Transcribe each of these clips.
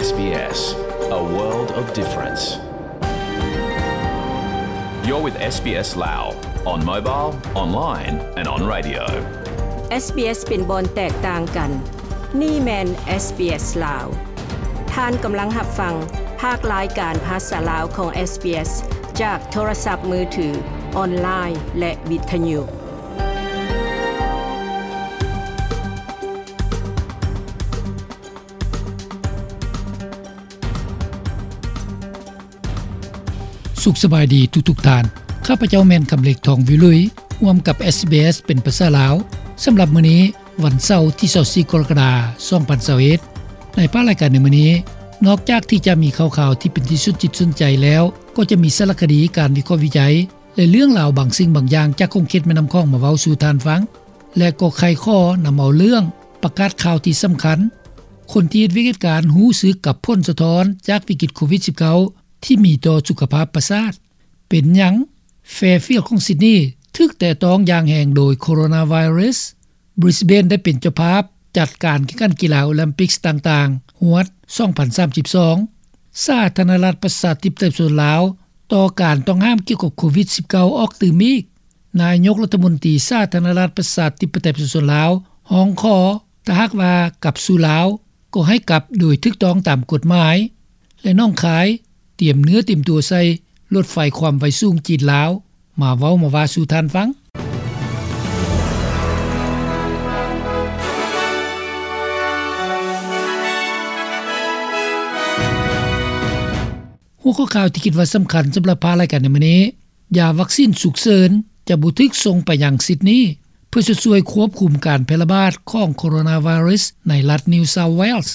S B S, a world of difference. You're with S B S Lao, on mobile, online and on radio. S B S ເປັນບ່ອນແຕກຕ່າງກັນ. ນີ້ແມ່ນ S B S ລາວ. ທ່ານກຳລັງຮັບຟັງພາກລາຍການພາສາລາວຂອງ S B S ຈາກໂທລະສັບມືຖື, ອອນລາຍ ແລະ ວິທະຍຸ. ສຸກສະບາຍດີທຸກໆທ່ານ. ຂ້າພະເຈົ້າແມ່ນຄຳເລັກ ທອງວິລຸຍ ຮ່ວມກັບ SBS ເປັນພາສາລາວ. ສຳລັບມື້ນີ້ ວັນເສົາ ທີຊາວສີ່ ກໍລະກະດາ ສອງພັນຊາວເອັດ ໃນພາກລາຍການໃນມື້ນີ້, ນອກຈາກທີ່ຈະມີຂ່າວໆທີ່ເປັນທີ່ສົນຈິດສົນໃຈແລ້ວ, ກໍຈະມີສາລະຄະດີ, ການວິເຄາະວິໄຈ ແລະ ເລື່ອງລາວບາງສິ່ງບາງຢ່າງຈາກຂົງເຂດແມ່ນ້ຳຂອງມາເວົ້າສູ່ທ່ານຟັງ ແລະ ກໍໄຂຂໍ້ນຳເອົາເລື່ອງປະກາດຂ່າວທີ່ສຳຄັນ, ຄົນທີ່ເຮັດວຽກເຮັດການຮູ້ສຶກກັບຜົນສະທ້ອນຈາກວິກິດໂຄວິດສິບເກົ້າ ທີ່ມີຕໍ່ສຸຂະພາບປະສາດ. ເປັນຫຍັງ Fairfield ຂອງ Sydney ຖືກແຕະຕ້ອງຢ່າງແຮງໂດຍໂຄໂຣນາໄວຣັສ? Brisbane ໄດ້ເປັນເຈົ້າພາບຈັດການແຂ່ງຂັນກິລາໂອລິມປິກຕ່າງໆ ຮວດ ສອງພັນສາມສິບສອງ. ສາທາລະນະລັດປະຊາທິປະໄຕປະຊາຊົນລາວ ຕໍ່ການຕ້ອງຫ້າມກ່ຽວກັບໂຄວິດສິບເກົ້າ ອອກຕື່ມອີກ. ນາຍົກລັດຖະມົນຕີສາທາລະນະລັດປະຊາທິປະໄຕປະຊາຊົນລາວ ຮ້ອງຂໍ ຖ້າຫາກວ່າກັບສູ່ລາວ ກໍໃຫ້ກັບໂດຍຖືກຕ້ອງຕາມກົດໝາຍ ແລະ ໜອງຄາຍ ຕຽມເນື້ອຕຽມຕົວໃສ່ລົດໄຟຄວາມໄວສູງຈີນ-ລາວ. ມາເວົ້າມາວ່າສູ່ທ່ານຟັງ. ຫົວຂໍ້ຂ່າວທີ່ຄິດວ່າສຳຄັນສຳລັບພາກລາຍການໃນມື້ນີ້, ຢາວັກຊິນສຸກເສີນຈະບໍ່ຖືກສົ່ງໄປຍັງ Sydney ເພື່ອຊ່ວຍຄວບຄຸມການແຜ່ລະບາດຂອງໂຄໂຣນາໄວຣັສໃນລັດ New South Wales.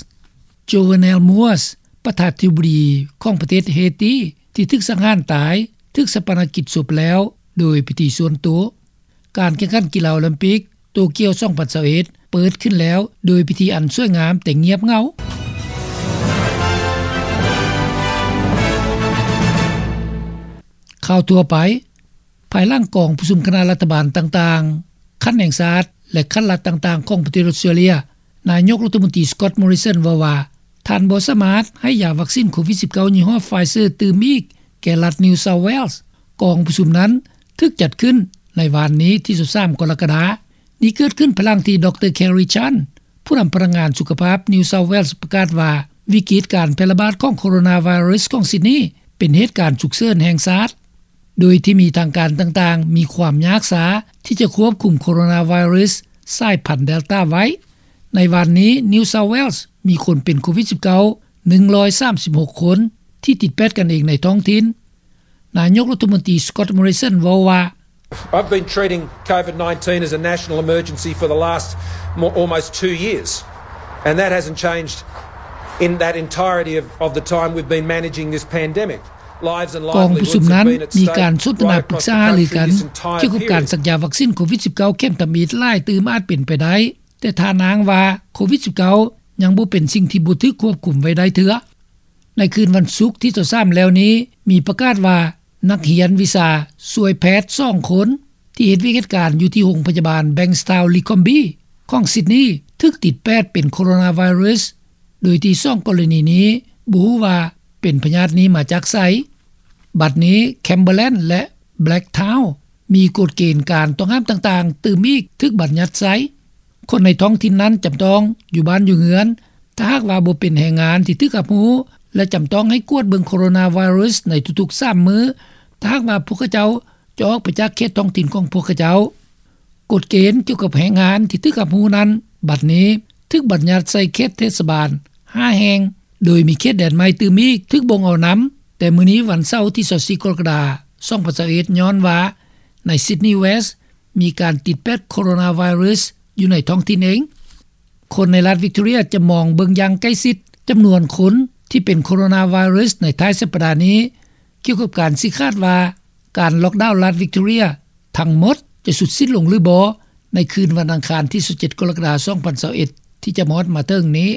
Jovenel Moïse ປະທານາທິບໍດີຂອງປະເທດເຮຕີ ທີ່ຖືກສັງຫານຕາຍ ຖືກຊາປະນະກິດສົບແລ້ວໂດຍພິທີສ່ວນໂຕ. ການແຂ່ງຂັນກິລາໂອລິມປິກໂຕກຽວ ສອງພັນຊາວເອັດ ເປີດຂຶ້ນແລ້ວໂດຍພິທີອັນສວຍງາມແຕ່ງຽບເຫງົາ. ຂ່າວທົ່ວໄປ. ພາຍຫຼັງກອງປະຊຸມຄະນະລັດຖະບານຕ່າງໆ ຂັ້ນແຫ່ງຊາດ ແລະ ຂັ້ນລັດຕ່າງໆຂອງປະເທດອອສເຕຣເລັຍ, ນາຍົກລັດຖະມົນຕີ Scott Morrison ເວົ້າວ່າ ທ່ານບໍ່ສາມາດໃຫ້ຢາວັກຊິນໂຄວິດສິບເກົ້າ ຍີ່ຫໍ້ Pfizer ຕື່ມອີກແກ່ລັດ New South Wales. ກອງປະຊຸມນັ້ນຖືກຈັດຂຶ້ນໃນວານນີ້ ທີຊາວສາມ ກໍລະກະດາ. ນີ້ເກີດຂຶ້ນພາຍຫຼັງທີ່ ດຣ Kerry Chant ຜູ້ນຳພະນັກງານສຸຂະພາບ New South Wales ປະກາດວ່າ ວິກິດການແຜ່ລະບາດຂອງໂຄໂຣນາໄວຣັສຂອງ Sydney ເປັນເຫດການສຸກເສີນແຫ່ງຊາດ, ໂດຍທີ່ມີທາງການຕ່າງໆມີຄວາມຍາກຊ້າທີ່ຈະຄວບຄຸມໂຄໂຣນາໄວຣັສສາຍພັນ Delta ໄວ້. ໃນວານນີ້ New South Wales ມີຄົນເປັນໂຄວິດສິບເກົ້າ ໜຶ່ງຮ້ອຍສາມສິບຫົກຄົນ ທີ່ຕິດແປດກັນເອງໃນທ້ອງຖິ່ນ. ນາຍົກລັດຖະມົນຕີ Scott Morrison ເວົ້າວ່າ, I've been treating COVID nineteen as a national emergency for the last mo-, almost two years, and that hasn't changed in that entirety of, of the time we've been managing this pandemic. Lives and livelihoods have been at stake. ກອງປະຊຸມນັ້ນມີການສົນທະນາປຶກສາຫາລືກັນກ່ຽວກັບການສັກຢາວັກຊິນໂຄວິດສິບເກົ້າ ເຂັມທຳອິດຫຼາຍຕື່ມອາດເປັນໄປໄດ້, ແຕ່ທ່ານອ້າງວ່າ ໂຄວິດສິບເກົ້າ ຍັງບໍ່ເປັນສິ່ງທີ່ບໍ່ຖືກຄວບຄຸມໄວ້ໄດ້ເທື່ອ. ໃນຄືນວັນສຸກທີຊາວສາມແລ້ວນີ້ ມີປະກາດວ່າ ນັກຮຽນວິຊາຊ່ວຍແພດສອງຄົນ ທີ່ເຮັດວຽກເຮັດການຢູ່ທີ່ໂຮງພະຍາບານ Bankstown-le-Combe ຂອງ Sydney ຖືກຕິດແປດເປັນໂຄໂຣນາໄວຣັສ, ໂດຍທີ່ສອງກໍລະນີນີ້ບໍ່ຮູ້ວ່າເປັນພະຍາດນີ້ມາຈາກໃສ. ບັດນີ້ Campbellland ແລະ Blacktown ມີກົດເກນການຕ້ອງຫ້າມຕ່າງໆຕື່ມອີກຖືກບັນຍັດໃຊ້. ຄົນໃນທ້ອງຖິ່ນນັ້ນຈຳຕ້ອງຢູ່ບ້ານຢູ່ເຮືອນ ຖ້າຫາກວ່າບໍ່ເປັນແຮງງານທີ່ຖືກຮັບຮູ້ ແລະ ຈຳຕ້ອງໃຫ້ກວດເບິ່ງໂຄໂຣນາໄວຣັສໃນທຸກໆສາມມື້ ຖ້າຫາກວ່າພວກເຂົາເຈົ້າຈະອອກໄປຈາກເຂດທ້ອງຖິ່ນຂອງພວກເຂົາເຈົ້າ. ກົດເກນກ່ຽວກັບແຮງງານທີ່ຖືກຮັບຮູ້ນັ້ນ ບັດນີ້ຖືກບັນຍັດໃສ່ເຂດເທດສະບານຫ້າແຫ່ງ, ໂດຍມີເຂດແດນໃໝ່ຕື່ມອີກຖືກບົ່ງເອົານຳ ແຕ່ມື້ນີ້ວັນເສົາທີຊາວສີ່ ກໍລະກະດາ ສອງພັນຊາວເອັດ ຍ້ອນວ່າໃນ Sydney West ມີການຕິດແປດໂຄໂຣນາໄວຣັສຢູ່ໃນທ້ອງຖິ່ນເອງ. ຄົນໃນລັດ Victoria ຈະມອງເບິ່ງຢ່າງໃກ້ຊິດຈຳນວນຄົນທີ່ເປັນໂຄໂຣນາໄວຣັສໃນທ້າຍສັບປະດານີ້ ກ່ຽວກັບການຊີ້ຂາດວ່າການລັອກດາວລັດ Victoria ທັງໝົດຈະສຸດສິ້ນລົງຫຼືບໍ່ ໃນຄືນວັນອັງຄານທີຊາວເຈັດ ກໍລະກະດາ ສອງພັນຊາວເອັດ ທີ່ຈະມາຮອດມາເຖິງນີ້.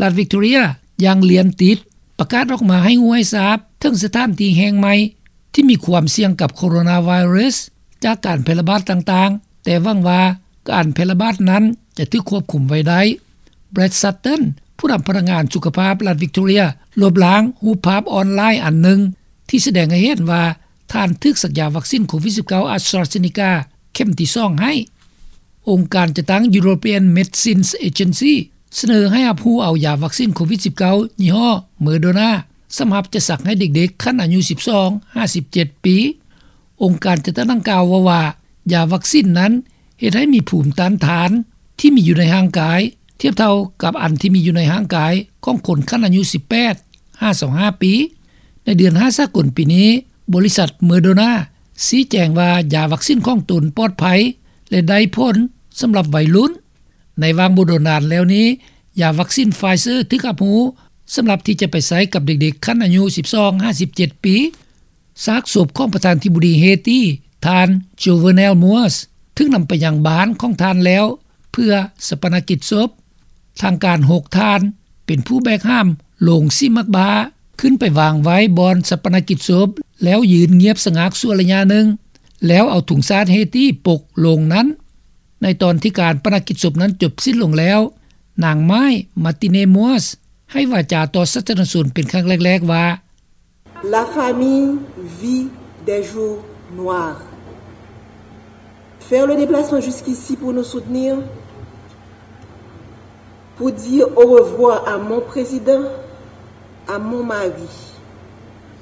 ລັດ Victoria ຢ່າງລຽນຕິດປະກາດອອກມາໃຫ້ຮູ້ໃຫ້ຊາບເຖິງສະຖານທີ່ແຫ່ງໃໝ່ ທີ່ມີຄວາມສ່ຽງກັບໂຄໂຣນາໄວຣັສຈາກການແຜ່ລະບາດຕ່າງໆ, ແຕ່ຫວັງວ່າການແຜ່ລະບາດນັ້ນຈະຖືກຄວບຄຸມໄວ້ໄດ້. Brad Sutton ຜູ້ນຳພະນັກງານສຸຂະພາບລັດວິກໂຕເຣຍ ລົບລ້າງຮູບພາບອອນລາຍອັນໜຶ່ງ ທີ່ສະແດງໃຫ້ເຫັນວ່າ ທ່ານຖືກສັກຢາວັກຊິນໂຄວິດ-19 ອາສຕຣາເຊເນກາ ເຂັມທີສອງໃຫ້. ອົງການຈັດຕັ້ງ European Medicines Agency ສະເໜີໃຫ້ຮັບຮູ້ເອົາຢາວັກຊິນໂຄວິດ-19 ຍີ່ຫໍ້ Moderna ສຳລັບຈະສັກໃຫ້ເດັກໆ ຂັ້ນອາຍຸ ສິບສອງ ຫາ ສິບເຈັດ ປີ. ອົງການຈັດຕັ້ງດັ່ງກ່າວເວົ້າວ່າ ຢາວັກຊິນນັ້ນເຮັດໃຫ້ມີພູມຕ້ານທານທີ່ມີຢູ່ໃນຮ່າງກາຍ ທຽບເທົ່າກັບອັນທີ່ມີຢູ່ໃນຮ່າງກາຍຂອງຄົນຂັ້ນອາຍຸ ສິບແປດ ຫາ ຊາວຫ້າ ປີ. ໃນເດືອນຫ້າສາກົນປີນີ້, ບໍລິສັດ Moderna ຊີ້ແຈງວ່າຢາວັກຊິນຂອງຕົນປອດໄພ ແລະ ໄດ້ຜົນສຳລັບໄວລຸ້ນ. ໃນຫວ່າງບໍ່ດົນນານແລ້ວນີ້, ຢາວັກຊິນ Pfizer ຖືກຮັບຮູ້ສຳລັບທີ່ຈະໄປໃຊ້ກັບເດັກໆ ຂັ້ນອາຍຸ ສິບສອງ ຫາ ສິບເຈັດ ປີ. ຊາກສົບຂອງປະທານທິບໍດີເຮຕີ ທ່ານ Jovenel Moïse ຖືກນຳໄປຍັງບ້ານຂອງທ່ານແລ້ວ ເພື່ອຊາປະນະກິດສົບ. ທາງການ ຫົກ ທ່ານ ເປັນຜູ້ແບກຫາມໂລງສີໝາກບ້າ ຂຶ້ນໄປວາງໄວ້ບ່ອນຊາປະນະກິດສົບ ແລ້ວຢືນງຽບສະຫງັກຊົ່ວໄລຍະໜຶ່ງ ແລ້ວເອົາທຸງຊາດເຮຕີປົກໂລງນັ້ນ. ໃນຕອນທີ່ການປະນະກິດສົບນັ້ນຈົບສິ້ນລົງແລ້ວ, ນາງ May Martine-Moïse ໃຫ້ວາຈາຕໍ່ສາທາລະນະຊົນເປັນຄັ້ງແລກໆວ່າ, La famille vit des jours noirs. Faire le déplacement jusqu'ici pour nous soutenir, pour dire au revoir à mon président, à mon mari,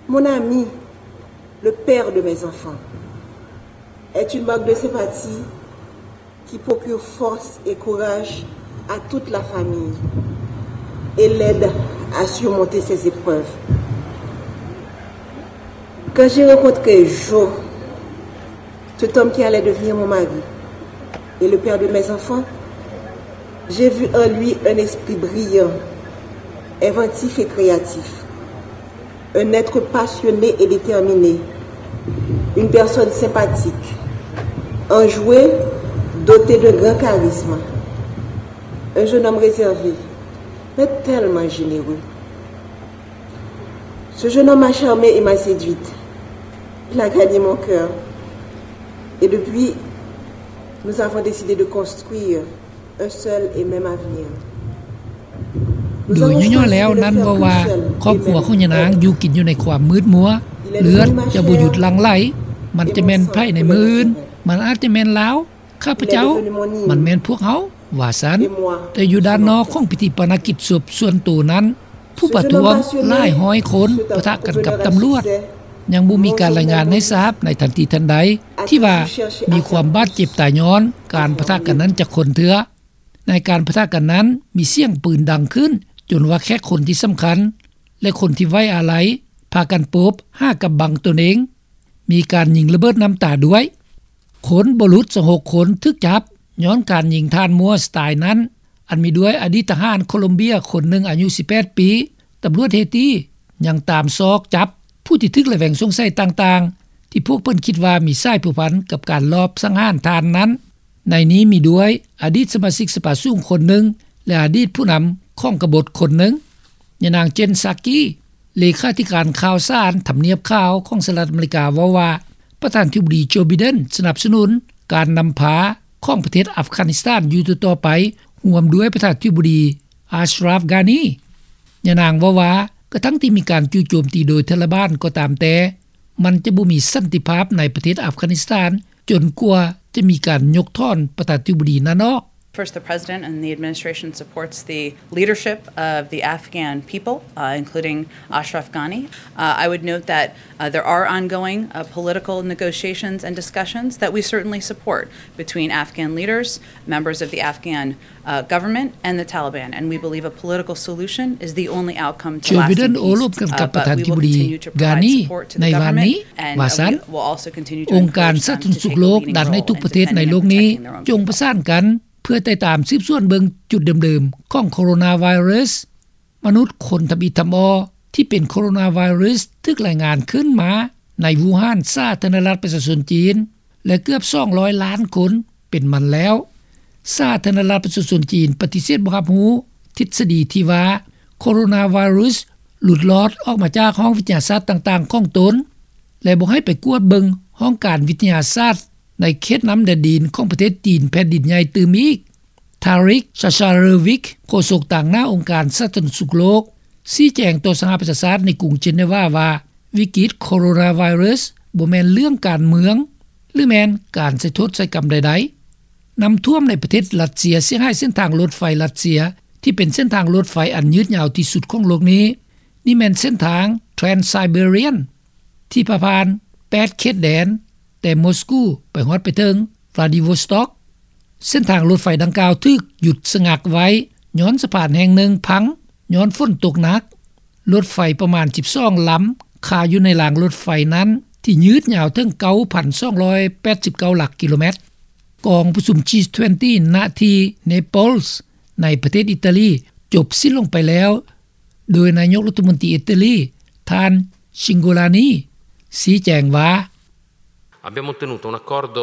mon ami, le père de mes enfants, est une marque de sympathie qui procure force et courage à toute la famille et l'aide à surmonter ces épreuves. Quand j'ai rencontré Jo, cet homme qui allait devenir mon mari et le père de mes enfants, j'ai vu en lui un esprit brillant, inventif et créatif. Un être passionné et déterminé, une personne sympathique, enjoué, doté d'un grand charisme, un jeune homme réservé, mais tellement généreux. Ce jeune homme m'a charmée et m'a séduite. Il a gagné mon cœur. Et depuis, nous avons décidé de construire un seul et même avenir. ໂດຍຫຍໍ້ໆແລ້ວນັ້ນເວົ້າວ່າ ຄອບຄົວຂອງຍານາງຢູ່ກິນຢູ່ໃນຄວາມມືດມົວ, ເລືອດຈະບໍ່ຢຸດຫຼັ່ງໄຫຼ, ມັນຈະແມ່ນໃຜໃນມື້ອື່ນ, ມັນອາດຈະແມ່ນລາວ, ຂ້າພະເຈົ້າ, ມັນແມ່ນພວກເຮົາ, ວ່າຊັ້ນ. ແຕ່ຢູ່ດ້ານນອກຂອງພິທີປະນະກິດສົບສ່ວນໂຕນັ້ນ, ຜູ້ປະທ້ວງຫຼາຍຮ້ອຍຄົນປະທະກັນກັບຕຳຫຼວດ. ຍັງບໍ່ມີການລາຍງານໃຫ້ຊາບໃນທັນທີທັນໃດ ທີ່ວ່າມີຄວາມບາດເຈັບຕາຍຍ້ອນການປະທະກັນນັ້ນຈັກຄົນເທື່ອ. ໃນການປະທະກັນນັ້ນ ມີສຽງປືນດັງຂຶ້ນ ຈົນວ່າແຂກຄົນທີ່ສຳຄັນ ແລະ ຄົນທີ່ໄວ້ອາໄລ ພາກັນໂປບຫາກັບບັງຕົນເອງ. ມີການຍິງລະເບີດນ້ຳຕາດ້ວຍ. ຄົນບໍ່ຫຼຸດຊາວຫົກຄົນຖືກຈັບຍ້ອນການຍິງທ່ານ Moïse ຕາຍນັ້ນ, ອັນມີດ້ວຍອະດີດທະຫານໂຄລັມເບຍຄົນໜຶ່ງອາຍຸສິບແປດປີ. ຕຳຫຼວດເຮຕີຍັງຕາມຊອກຈັບຜູ້ທີ່ຖືກລະແວງສົງໄສຕ່າງໆ ທີ່ພວກເພິ່ນຄິດວ່າມີສາຍພົວພັນກັບການລອບສັງຫານທ່ານນັ້ນ. ໃນນີ້ມີດ້ວຍອະດີດສະມາຊິກສະພາສູງຄົນໜຶ່ງ ແລະ ອະດີດຜູ້ນຳຂອງກະບົດຄົນໜຶ່ງ. ຍານາງ Jen Psaki ເລຂາທິການຂ່າວສານທຳນຽບຂາວຂອງສະຫະລັດອາເມລິກາ ເວົ້າວ່າ ປະທານທິບໍດີ Joe Biden ສະໜັບສະໜູນການນຳພາຂອງປະເທດອັຟການິສຖານຢູ່ຕໍ່ໆໄປ, ຮ່ວມດ້ວຍປະທານທິບໍດີ Ashraf Ghani. ຍານາງເວົ້າວ່າ ກະທັ່ງທີ່ມີການຈູ່ໂຈມຕີໂດຍທາລະບານກໍຕາມແຕ່, ມັນຈະບໍ່ມີສັນຕິພາບໃນປະເທດອັຟການິສຖານ ຈົນກວ່າຈະມີການຍົກຖອນປະທານທິບໍດີນັ້ນອອກ. First, the President and the administration supports the leadership of the Afghan people, uh, including Ashraf Ghani. Uh, I would note that, uh, there are ongoing, uh, political negotiations and discussions that we certainly support between Afghan leaders, members of the Afghan uh, government and the Taliban, and we believe a political solution is the only outcome to lasting peace. ໂຈ ບິເດັນ ໂອ້ລົມກັນກັບປະທານທິບໍດີ ການີ ໃນວານນີ້ ວ່າຊັ້ນ. ອົງການສາທາລະນະສຸກໂລກດັນໃຫ້ທຸກປະເທດໃນໂລກນີ້ ຈົ່ງປະສານກັນ ເພື່ອຕິດຕາມສືບສວນເບິ່ງຈຸດເດີມໆຂອງໂຄໂຣນາໄວຣັສ. ມະນຸດຄົນທຳອິດທຳອໍທີ່ເປັນໂຄໂຣນາໄວຣັສ ຖືກລາຍງານຂຶ້ນມາໃນວູຮານ ສາທາລະນະລັດປະຊາຊົນຈີນ ແລະ ເກືອບສອງຮ້ອຍລ້ານຄົນເປັນມັນແລ້ວ. ສາທາລະນະລັດປະຊາຊົນຈີນປະຕິເສດບໍ່ຮັບຮູ້ທິດສະດີທີ່ວ່າ ໂຄໂຣນາໄວຣັສຫຼຸດລອດອອກມາຈາກຫ້ອງວິທະຍາສາດຕ່າງໆຂອງຕົນ ແລະ ບໍ່ໃຫ້ໄປກວດເບິ່ງຫ້ອງການວິທະຍາສາດໃນເຂດນ້ຳແດນດິນຂອງປະເທດຈີນແຜ່ນດິນໃຫຍ່ຕື່ມອີກ. Tarik Jasarevic ໂຄສົກຕາງໜ້າອົງການສາທາລະນະສຸກໂລກ ຊີ້ແຈງຕໍ່ສະຫະປະຊາຊາດໃນກຸງເຈເນວາວ່າ ວິກິດໂຄໂຣນາໄວຣັສບໍ່ແມ່ນເລື່ອງການເມືອງ ຫຼືແມ່ນການໃສ່ໂທດໃສ່ກຳໃດໆ. ນ້ຳຖ້ວມໃນປະເທດຣັດເຊຍເສຍຫາຍເສັ້ນທາງລົດໄຟຣັດເຊຍ ທີ່ເປັນເສັ້ນທາງລົດໄຟອັນຍືດຍາວທີ່ສຸດຂອງໂລກນີ້. ນີ້ແມ່ນເສັ້ນທາງ Trans-Siberian ທີ່ພາຜ່ານແປດເຂດແດນ ແຕ່ມອສກູໄປຮອດໄປເຖິງ Vladivostok. ເສັ້ນທາງລົດໄຟດັ່ງກ່າວຖືກຢຸດສະງັກໄວ້ ຍ້ອນສະພານແຫ່ງໜຶ່ງພັງ ຍ້ອນຝົນຕົກໜັກ. ລົດໄຟປະມານສິບສອງລຳຄາຢູ່ໃນລາງລົດໄຟນັ້ນ ທີ່ຍືດຍາວເຖິງເກົ້າພັນສອງຮ້ອຍແປດສິບເກົ້າຫຼັກກິໂລແມັດ. ກອງປະຊຸມ ຈີ ຊາວເອັດ ນະທີ່ Naples ໃນປະເທດອີຕາລີ ຈົບສິ້ນລົງໄປແລ້ວ ໂດຍນາຍົກລັດຖະມົນຕີອີຕາລີ ທ່ານ Cingolani ຊີ້ແຈງວ່າ Abbiamo ottenuto un accordo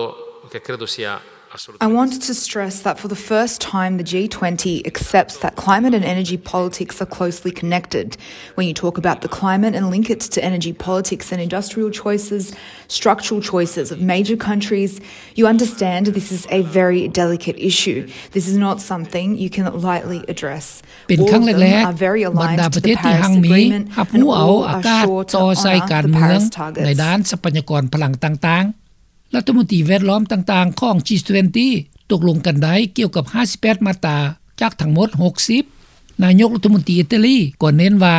che credo sia assolutamente I wanted to stress that for the first time, the G twenty accepts that climate and energy politics are closely connected. When you talk about the climate and link it to energy politics and industrial choices, structural choices of major countries, you understand this is a very delicate issue. This is not something you can lightly address. ເປັນຄັ້ງແລກໆ ບັນດາປະເທດທີ່ຮັ່ງມີຮັບຮູ້ເອົາອາກາດຕໍ່ໃສ່ການເມືອງໃນດ້ານຊັບພະຍາກອນພະລັງຕ່າງໆ. ລັດຖະມົນຕີແວດລ້ອມຕ່າງໆຂອງ ຈີ ຊາວເອັດ ຕົກລົງກັນໄດ້ກ່ຽວກັບຫ້າສິບແປດມາດຕາຈາກທັງໝົດຫົກສິບ. ນາຍົກລັດຖະມົນຕີອີຕາລີກໍເນັ້ນວ່າ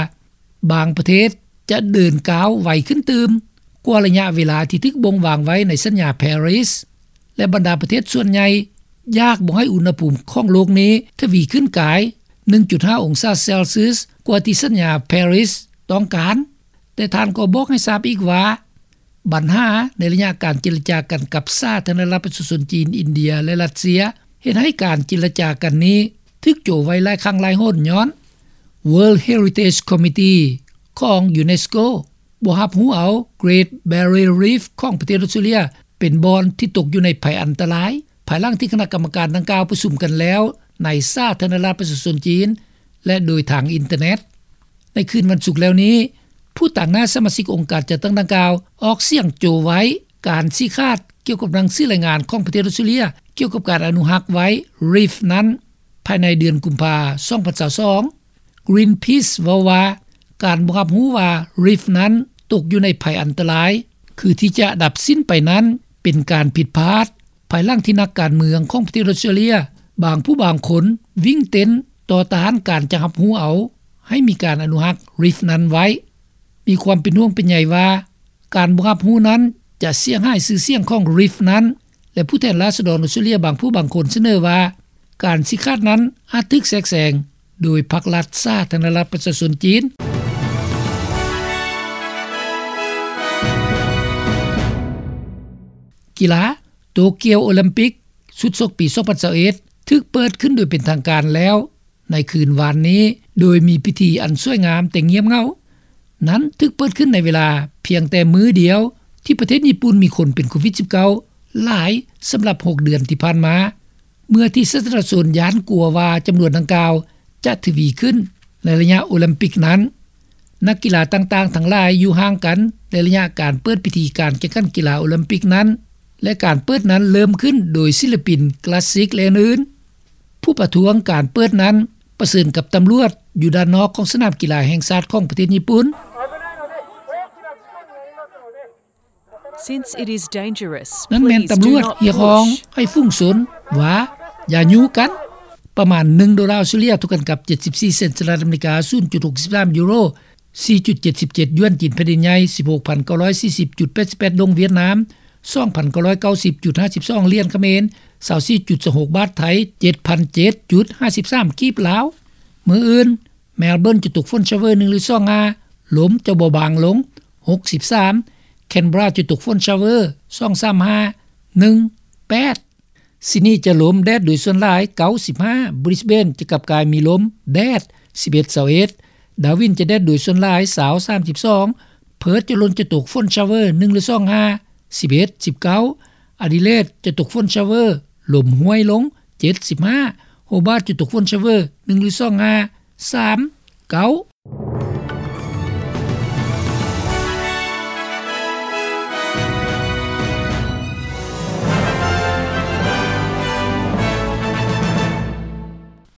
ບາງປະເທດຈະເດີນກ້າວໄວຂຶ້ນຕື່ມກວ່າໄລຍະເວລາທີ່ຖືກບົ່ງວາງໄວ້ໃນສັນຍາປາຣີສ ແລະ ບັນດາປະເທດສ່ວນໃຫຍ່ຢາກບໍ່ໃຫ້ອຸນຫະພູມຂອງໂລກນີ້ທະວີຂຶ້ນກາຍໜຶ່ງຈຸດຫ້າອົງສາເຊລຊຽສ ກວ່າທີ່ສັນຍາປາຣີສຕ້ອງການ. ແຕ່ທ່ານກໍບອກໃຫ້ຊາບອີກວ່າ ບັນຫາໃນໄລຍະການເຈລະຈາກັນກັບສາທາລະນະລັດປະຊາຊົນຈີນ, ອິນເດຍ ແລະ ຣັດເຊຍ ເຮັດໃຫ້ການເຈລະຈາກັນນີ້ຖືກໂຈະໄວ້ຫຼາຍຄັ້ງຫຼາຍຫົນ ຍ້ອນ World Heritage Committee ຂອງ UNESCO ບໍ່ຮັບຮູ້ເອົາ Great Barrier Reef ຂອງປະເທດອົດສະຕຣາເລຍ ເປັນບ່ອນທີ່ຕົກຢູ່ໃນໄພອັນຕະລາຍ ພາຍຫຼັງທີ່ຄະນະກຳມະການດັ່ງກ່າວປະຊຸມກັນແລ້ວໃນສາທາລະນະລັດປະຊາຊົນຈີນ ແລະ ໂດຍທາງອິນເຕີເນັດ. ໃນຄືນວັນສຸກແລ້ວນີ້ ຜູ້ຕາງໜ້າສະມາຊິກອົງການຈັດຕັ້ງດັ່ງກ່າວ ອອກສຽງໂຈະໄວ້ການຊີ້ຂາດກ່ຽວກັບໜັງສືລາຍງານຂອງປະເທດອົດສະຕຣາເລຍ ກ່ຽວກັບການອະນຸຮັກໄວ້ຣີຟນັ້ນ ພາຍໃນເດືອນກຸມພາ ສອງພັນຊາວສອງ. Greenpeace ເວົ້າວ່າ ການບໍ່ຮັບຮູ້ວ່າຣີຟນັ້ນຕົກຢູ່ໃນໄພອັນຕະລາຍ ຄືທີ່ຈະດັບສິ້ນໄປນັ້ນ ເປັນການຜິດພາດ ພາຍຫຼັງທີ່ນັກການເມືອງຂອງປະເທດອົດສະຕຣາເລຍ ບາງຜູ້ບາງຄົນວິ່ງເຕັ້ນຕໍ່ຕ້ານການຈະຮັບຮູ້ເອົາໃຫ້ມີການອະນຸຮັກຣີຟນັ້ນໄວ້. ມີຄວາມເປັນຫ່ວງເປັນໃຍວ່າ ການບໍ່ຮັບຮູ້ນັ້ນຈະເສຍຫາຍຊື່ສຽງຂອງຣີຟນັ້ນ ແລະ ຜູ້ແທນລາຊະດອນອົດສະຕຣາເລຍບາງຜູ້ບາງຄົນສະເໜີວ່າ ການຊີ້ຂາດນັ້ນອາດຖືກແຊກແຊງໂດຍພັກລັດສາທາລະນະລັດປະຊາຊົນຈີນ. ກິລາ ໂຕກຽວໂອລິມປິກຊຸດຊົກປີສອງພັນຊາວເອັດ ຖືກເປີດຂຶ້ນໂດຍເປັນທາງການແລ້ວໃນຄືນວານນີ້ ໂດຍມີພິທີອັນສວຍງາມແຕ່ງຽບເຫງົາ. ນັ້ນຖືກເປີດຂຶ້ນໃນເວລາພຽງແຕ່ມື້ດຽວທີ່ປະເທດຍີ່ປຸ່ນມີຄົນເປັນໂຄວິດສິບເກົ້າຫຼາຍສຳລັບຫົກເດືອນທີ່ຜ່ານມາ ເມື່ອທີ່ສາທາລະນະຊົນຢ້ານກົວວ່າຈຳນວນດັ່ງກ່າວຈະທະວີຂຶ້ນໃນໄລຍະໂອລິມປິກນັ້ນ. ນັກກິລາຕ່າງໆທັງຫຼາຍຢູ່ຫ່າງກັນ ແລະ ໄລຍະການເປີດພິທີການແຂ່ງຂັນກິລາໂອລິມປິກນັ້ນ ແລະ ການເປີດນັ້ນເລີ່ມຂຶ້ນໂດຍສິນລະປິນຄລາສສິກ ແລະ ອື່ນໆ. ຜູ້ປະທ້ວງການເປີດນັ້ນປະເຊີນກັບຕຳຫຼວດຢູ່ດ້ານນອກຂອງສະໜາມກິລາແຫ່ງຊາດຂອງປະເທດຍີ່ປຸ່ນ. Since it is dangerous, ນັ້ນແມ່ນຕຳຫຼວດຮຽກຮ້ອງໃຫ້ຝູງຊົນວ່າຢ່າຍູ້ກັນ. ປະມານໜຶ່ງໂດລາອົດສະຕຣາເລຍ ເທົ່າກັນກັບເຈັດສິບສີ່ເຊັນສະຫະລັດອາເມລິກາ, ສູນຈຸດຫົກສິບສາມຢູໂຣ, ສີ່ຈຸດເຈັດສິບເຈັດຢວນຈີນແຜ່ນດິນໃຫຍ່, ສິບຫົກພັນເກົ້າຮ້ອຍສີ່ສິບຈຸດແປດສິບແປດດົງຫວຽດນາມ, ສອງພັນເກົ້າຮ້ອຍເກົ້າສິບຈຸດຫ້າສິບສອງຫຼຽນຂະເໝນ, ຊາວສີ່ຈຸດສອງຫົກບາດໄທ, ເຈັດພັນເຈັດຈຸດຫ້າສິບສາມກີບລາວ. ມື້ອື່ນ ແມລເບີນຈະຕົກຝົນຊາວເວີໜຶ່ງຫຼືສອງຫ້າ, ລົມຈະເບົາບາງລົງ ຫົກສິບສາມ, ແຄນເບຣາຈະຕົກຝົນຊາວເວີສອງສາມຫ້າ ໜຶ່ງແປດ, ຊິດນີຈະລົມແດດໂດຍສ່ວນຫຼາຍ ເກົ້າສິບຫ້າ, ບຣິສເບນຈະກັບກາຍມີລົມແດດ ສິບເອັດ ຊາວເອັດ, ດາວິນຈະແດດໂດຍສ່ວນຫຼາຍ ຊາວ ສາມສິບສອງ, ເພີດຈະລົມຈະຕົກຝົນຊາວເວີໜຶ່ງຫຼືສອງຫ້າ ສິບເອັດ ສິບເກົ້າ, ອາດີເລດຈະຕົກຝົນຊາວເວີ ລົມຫ້ວຍລົງ ເຈັດສິບຫ້າ, ໂຮບາດຈະຕົກຝົນຊາວເວີໜຶ່ງຫຼືສອງຫ້າ ສາມເກົ້າ.